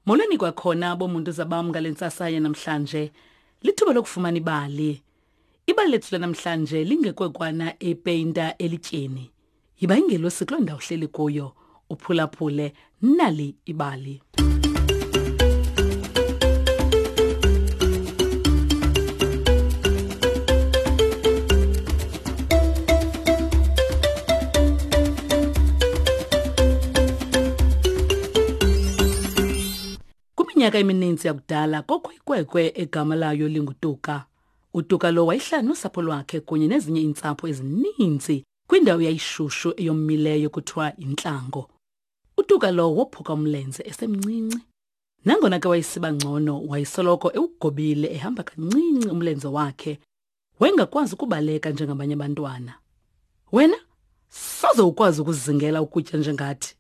Molweni kwakhona bomuntu zabam ngale ntsasa yanamhlanje. Lithuba lokufumana ibali. Ibali lethu lanamhlanje lingekwekwana epeyinta elityeni. Yiba ingelosi kuloo ndawo uhleli kuyo, uphulaphule nali ibali. Kwiminyaka emininzi yakudala kokho ikwekwe egama layo linguTuka. UTuka lo wayehlala nosapho lwakhe kunye nezinye iintsapho ezininzi kwindawo yayishushu eyomileyo kuthiwa yintlango. UTuka lo wophuka umlenze esemncinci. Nangona ke wayesiba ngcono, wayesoloko ewugobile ehamba kancinci umlenze wakhe. Wayengakwazi ukubaleka njengabanye abantwana. Wena soze ukwazi ukuzingela ukutya njengathi.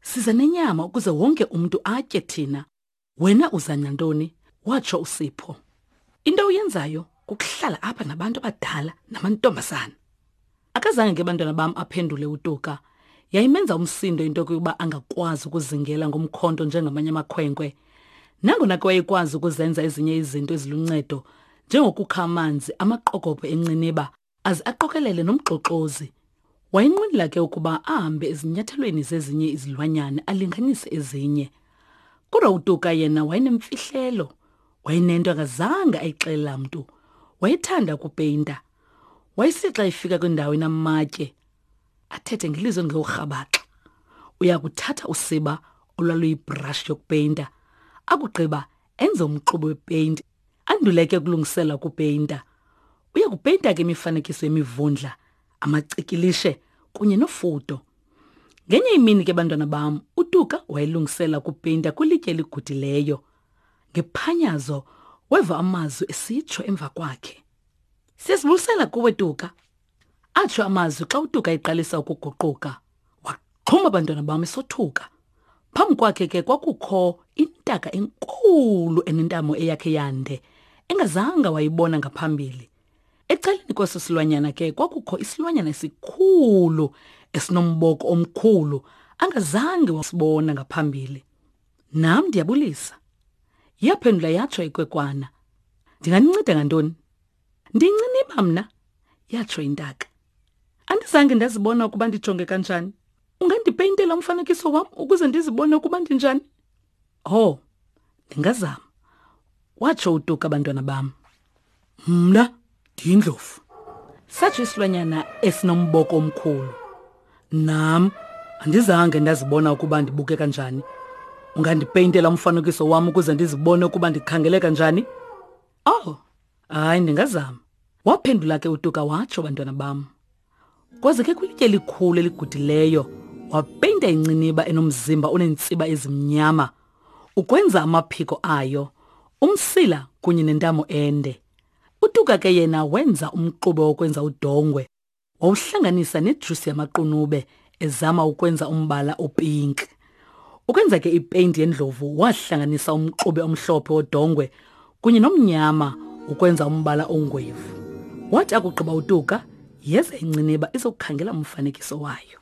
Siza nenyama ukuze wonke umntu atye thina. Wena uza nantoni? Watsho uSipho. Into oyenzayo kukuhlala apha nabantu abadala namantombazana. Akazange ke bantwana bam aphendule uTuka. Yayimenza umsindo into yokuba angakwazi ukuzingela ngomkhonto njengamanye amakhwenkwe. Nangona ke wayekwazi ukuzenza ezinye izinto eziluncedo njengokukha amanzi amaqokobhe enciniba aze aqokelele nomxoxozi. Wayenqwenela ke ukuba ahambe ezinyathelweni zezinye izilwanyana alinganise ezinye. Kodwa uTuka yena wayenemfihlelo. Wayenento angazange ayixelela mntu. Wayethanda ukupeyinta. Wayesixa efika kwindawo enamatye athethe ngelizwi elingewurhabaxa. Uya kuthatha usiba olwaluyibhrashi yokupeyinta akugqiba enze umxube wepeyinti andule ke ukulungisela ukupeyinta. Uya kupeyinta ke imifanekiso yemivundla, amacikilishe kunye nofudo. Ngenye imini ke bantwana bam, uTuka wayelungisela ukupeyinta kwilitye eligudileyo. Ngephanyazo weva amazwi esitsho emva kwakhe. Siyasibulisela kuwe Tuka. Atsho amazwi xa uTuka eqalisa ukuguquka. Waxhuma abantwana bam esothuka. Phambi kwakhe ke kwakukho intaka enkulu enentamo eyakhe yande engazanga wayibona ngaphambili. Ecaleni kweso silwanyana ke kwakukho isilwanyana esikhulu esinomboko omkhulu angazange wasibona ngaphambili. Nam ndiyabulisa. Yaphendula yatsho ikwekwana. Ndinganinceda ngantoni? Ndinciniba mna, yatsho intaka. Andizange ndazibona ukuba ndijonge kanjani. Ungandipeyintela umfanekiso wam ukuze ndizibone ukuba ndinjani? Oh, ndingazama, watsho uTuka abantwana bam. Mna ndiyindlovu. Satsho isilwanyana esinomboko omkhulu. Nam andizange ndazibona ukuba ndibukeka njani. Ungandipeyintela umfanekiso wam ukuze ndizibone ukuba ndikhangeleka njani? Oh, hayi ndingazama. Waphendula ke uTuka watsho bantwana bam. Kwaze ke kwilitye elikhulu eligudileyo wapeyinta inciniba enomzimba oneentsiba ezimnyama ukwenza amaphiko ayo, umsila kunye nentamo ende. UTuka ke yena wenza umxube wokwenza udongwe wawuhlanganisa nejusi yamaqunube ezama ukwenza umbala opinki. Ukwenza ke ipeyinti yendlovu wahlanganisa umxube omhlophe wodongwe kunye nomnyama ukwenza umbala ongwevu. Wathi akugqiba uTuka, yeza inciniba izokukhangela umfanekiso wayo.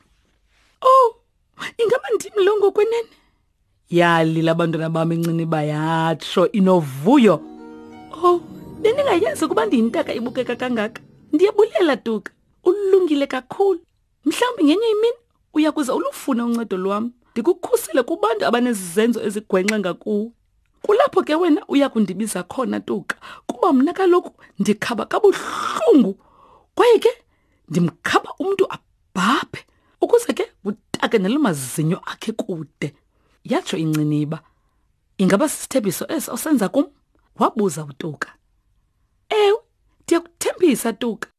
Oh, ingaba ndim lo ngokwenene? Yalila abantwana bam inciniba yatsho inovuyo. Oh, bendingayazi ukuba ndiyintaka ibukeka kangaka. Ndiyabulela Tuka, ulungile kakhulu. Mhlawumbi ngenye imini uya kuze ulufune uncedo lwam, ndikukhusele kubantu abanezizenzo ezigwenxa ngakuwe. Kulapho ke wena uya kundibiza khona Tuka, kuba mna kaloku ndikhaba kabuhlungu kwaye ke ndimkhaba umntu abhabhe ukuze ke utake nelo mazinyo akhe kude. Yatsho inciniba. Ingaba sisithembiso eso osenza kum? Wabuza uTuka. Ewe, ndiyakuthembisa Tuka.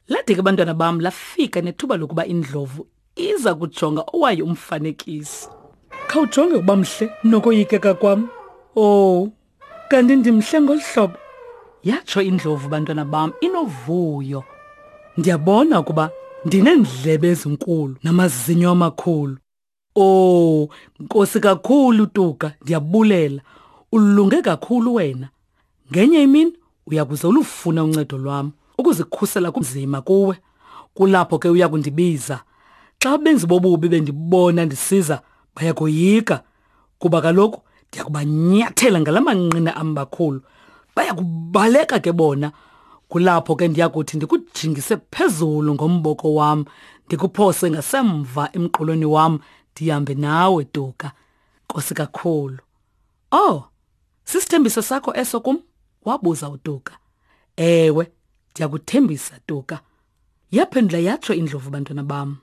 Lade ke bantwana bam lafika nethuba lokuba indlovu iza kujonga owayo umfanekiso. Khawujonge ukuba mhle nokoyikeka kwam. Oh, kanti ndimhle ngolu hlobo. Yatsho indlovu bantwana bam inovuyo. Ndiyabona ukuba ndineendlebe ezinkulu namazinyo amakhulu. Oh, Nkosi kakhulu Tuka, ndiyabulela. Ulunge kakhulu wena. Ngenye imini uyakuze ulufune uncedo lwam ukuzikhusela kunzima kuwe. Kulapho ke uya kundibiza. Xa abenzi bobubi bendibona ndisiza, bayakoyika kuba kaloku Ndiyakubanyathela ngala manqina ambakhulu. Baya kubaleka ke bona. Kulapho ke ndiyakuthi ndikujingise phezulu ngomboko wam, ndikuphose ngasemva emqolweni wam, ndihambe nawe Tuka. Nkosi kakhulu. Oh, sisithembiso sakho eso kum? Wabuza uTuka. Ewe, ndiyakuthembisa Tuka. Yaphendula yatsho indlovu bantwana bam.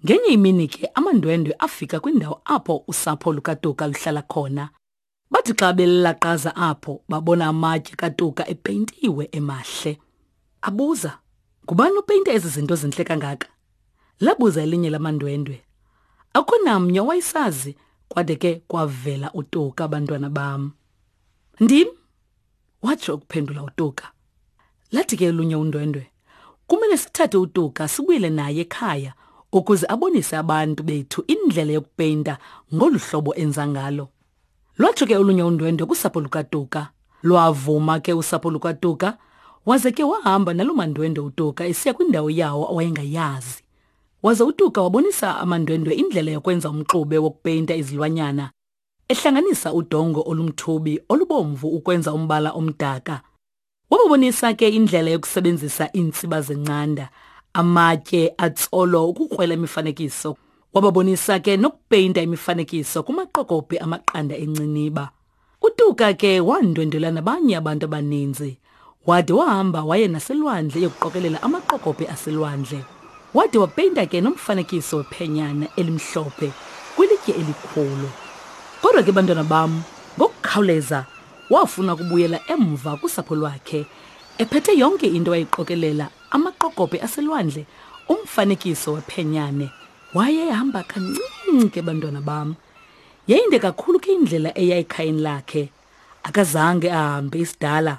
Ngenye imini ke amandwendwe afika kwindawo apho usapho lukaTuka luhlala khona. Bathi xa belaqaza apho babona amatye kaTuka epeyintiwe emahle. Abuza, ngubani opeyinte ezi zinto zintle kangaka? Labuza elinye lamandwendwe. Akukho namnye owayesazi kwade ke kwavela uTuka bantwana bam. Ndim, watsho ukuphendula uTuka. Lathi ke olunye undwendwe, kumele sithathe uTuka sibuyele naye ekhaya ukuze abonise abantu bethu indlela yokupeyinta ngolu hlobo enza ngalo. Lwatsho ke olunye undwendwe kusapho lukaTuka. Lwavuma ke usapho lukaTuka, waze ke wahamba naloo mandwendwe uTuka esiya kwindawo yawo awayengayazi. Waze uTuka wabonisa amandwendwe indlela yokwenza umxube wokupeyinta izilwanyana, ehlanganisa udongo olumthubi olubomvu ukwenza umbala omdaka. Wababonisa ke indlela yokusebenzisa iintsiba zencanda, amatye atsolo ukukrwela imifanekiso. Wababonisa ke nokupeyinta imifanekiso kumaqokobhe amaqanda enciniba. UTuka ke wandwendwela nabanye abantu abaninzi. Wade wahamba waye naselwandle eyokuqokelela amaqokobhe aselwandle. Wade wapeyinta ke nomfanekiso wephenyana elimhlophe kwilitye elikhulu. Kodwa ke bantwana bam, ngokukhawuleza wafuna ukubuyela emva kusapho lwakhe ephethe yonke into ayiqokelela amaqokobhe aselwandle umfanekiso wephenyane wayehamba kancinci ke bantwana bam yayinde kakhulu ke indlela eya ekhayeni lakhe akazange ahambe isidala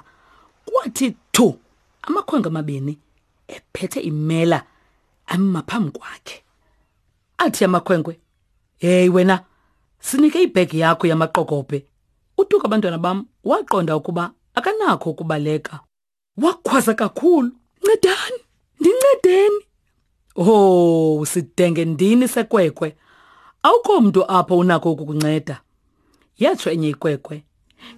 kwathi thu amakhwenkwe amabini ephethe imela ama phambi kwakhe athi amakhwenkwe hey wena sinike ibhegi yakho yamaqokobhe utuka abantwana bam waqonda ukuba akanakho ukubaleka wakhwaza kakhulu ncedani ndincedeni oh sidenge ndini sekwekwe awukho mntu apho unako ukukunceda yatsho enye ikwekwe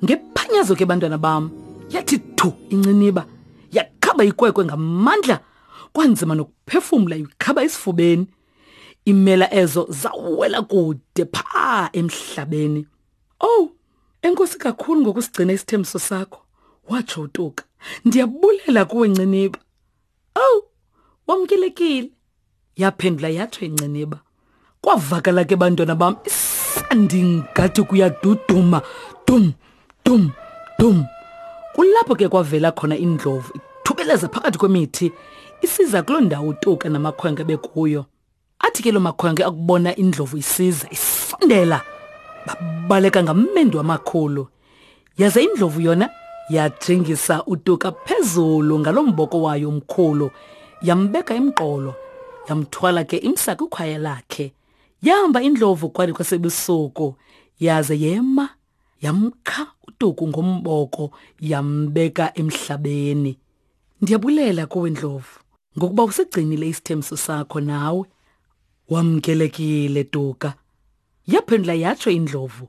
ngephanyazo ke bantwana bam yathi thu inciniba yakhaba ikwekwe ngamandla kwanzima nokuphefumla ikhaba esifubeni imela ezo zawela kude phaa emhlabeni owu enkosi kakhulu ngokusigcina isithembiso sakho watsho utuka ndiyabulela kuwe nciniba owu wamkelekile yaphendula yatsho inciniba kwavakala ke bantwana bam isandi ngathi kuyaduduma dum dum dum kulapho ke kwavela khona indlovu ithubeleza phakathi kwemithi isiza kuloo ndawo utuka namakhwenkwe bekuyo Athi ke lo makhwenkwe akubona indlovu isiza isondela babaleka ngamendu amakhulu. Yaze indlovu yona yajingisa uTuka phezulu ngalo mboko wayo omkhulu yambeka emqolo yamthwala ke imsa kwikhwaya lakhe. Yahamba indlovu kwade kwasebusuku yaze yema yamkha uTuku ngomboko yambeka emhlabeni. Ndiyabulela kuwe Ndlovu ngokuba usigcinile isithembiso sakho nawe. Wamkelekile Tuka. Yaphendula yatsho indlovu.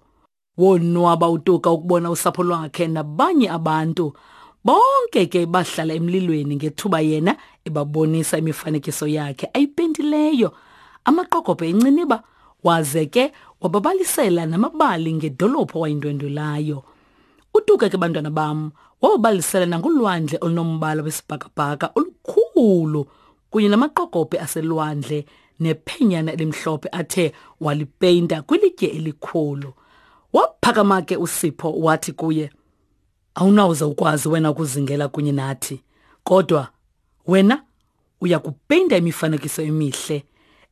Wonwaba uTuka ukubona usapho lwakhe nabanye abantu. Bonke ke bahlala emlilweni ngethuba yena ebabonisa imifanekiso yakhe ayipentileyo. Amaqokobhe enciniba waze ke wababalisela namabali ngedolophu awayindwendwelayo. Utuka ke bantwana bam wababalisela nangolwandle olunombala wesibhakabhaka olukhulu kunye namaqokobhe aselwandle nephenyana elimhlophe athe walipeyinta kwilitye elikhulu. Waphakama ke uSipho wathi kuye, Awunawuze ukwazi wena ukuzingela kunye nathi, kodwa wena uya kupeyinta imifanekiso emihle,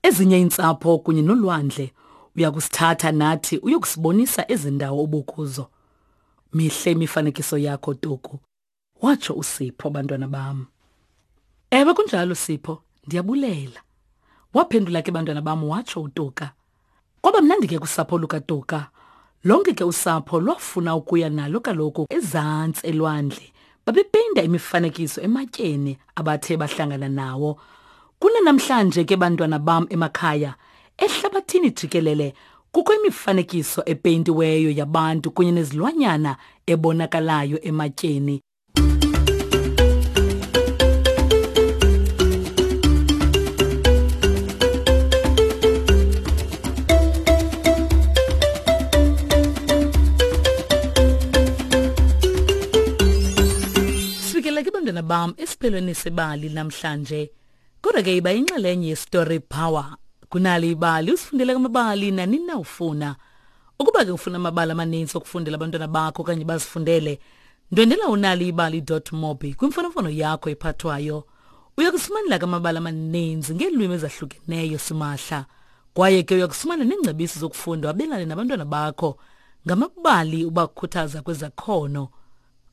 ezinye iintsapho kunye nolwandle. Uya kusithatha nathi uyokusibonisa ezi ndawo ubukuzo. Mihle imifanekiso yakho, Tuku, watsho uSipho, bantwana bam. Ewe kunjalo, Sipho, ndiyabulela. Waphendula ke bantwana bam watsho uTuka. Kwaba mnandi ke kusapho lukaTuka. Lonke ke usapho lwafuna ukuya nalo kaloku ezantsi elwandle. Babepeyinta imifanekiso ematyeni abathe bahlangana nawo. Kunanamhlanje ke bantwana bam emakhaya, ehlabathini jikelele Kukho imifanekiso epeyintiweyo yabantu kunye nezilwanyana ebonakalayo ematyeni. Sifikele ke bantwana bam esiphelweni sebali namhlanje. Kodwa ke iba inxalenye yeStory Power. Kunali ibali usifundele amabali nanini na ufuna. Ukuba ke ufuna amabali amaninzi okufundela abantwana bakho okanye bazifundele, ndwendela unaliibali.mobi kwimfonomfono yakho ephathwayo. Uya kufumanela ke amabali amaninzi ngeelwimi ezahlukeneyo simahla. Kwaye ke uya kufumana neengcebiso zokufunda wabelane nabantwana bakho ngamabali ubakhuthaza kwezakhono.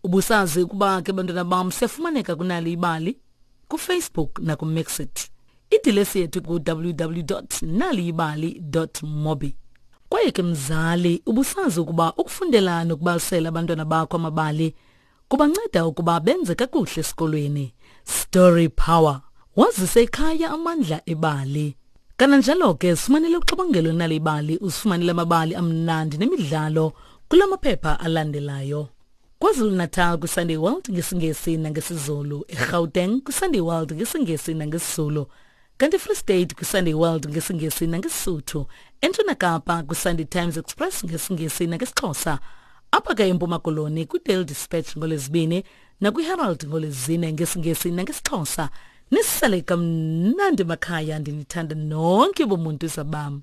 Ubusazi ukuba ke bantwana bam siyafumaneka kunali ibali kuFacebook nakuMixit. Idilesi yethu ku-www naliyibali mobi. Kwaye ke mzali, ubusazi ukuba ukufundela nokubalisela abantwana bakho amabali kubanceda ukuba benze kakuhle esikolweni. Story Power. Wazise ekhaya amandla ebali. Kananjalo ke sifumanele uxabangelo nalibali usifumanele amabali amnandi nemidlalo kula maphepha alandelayo. KwaZulu-Natal kwiSunday World ngesiNgesi nangesiZulu, eGauteng kwiSunday World ngesiNgesi nangesiZulu, kanti eFree State kwiSunday World ngesiNgesi nangeSisuthu, eNtshona Kapa kwiSunday Times Express ngesiNgesi nangesiXhosa, apha ke eMpuma Koloni kwiDaily Dispatch ngoLwezibini nakwiHerald ngoLwezine ngesiNgesi nangesiXhosa. Nisale kamnandi makhaya ndinithanda nonke bomuntu zabam.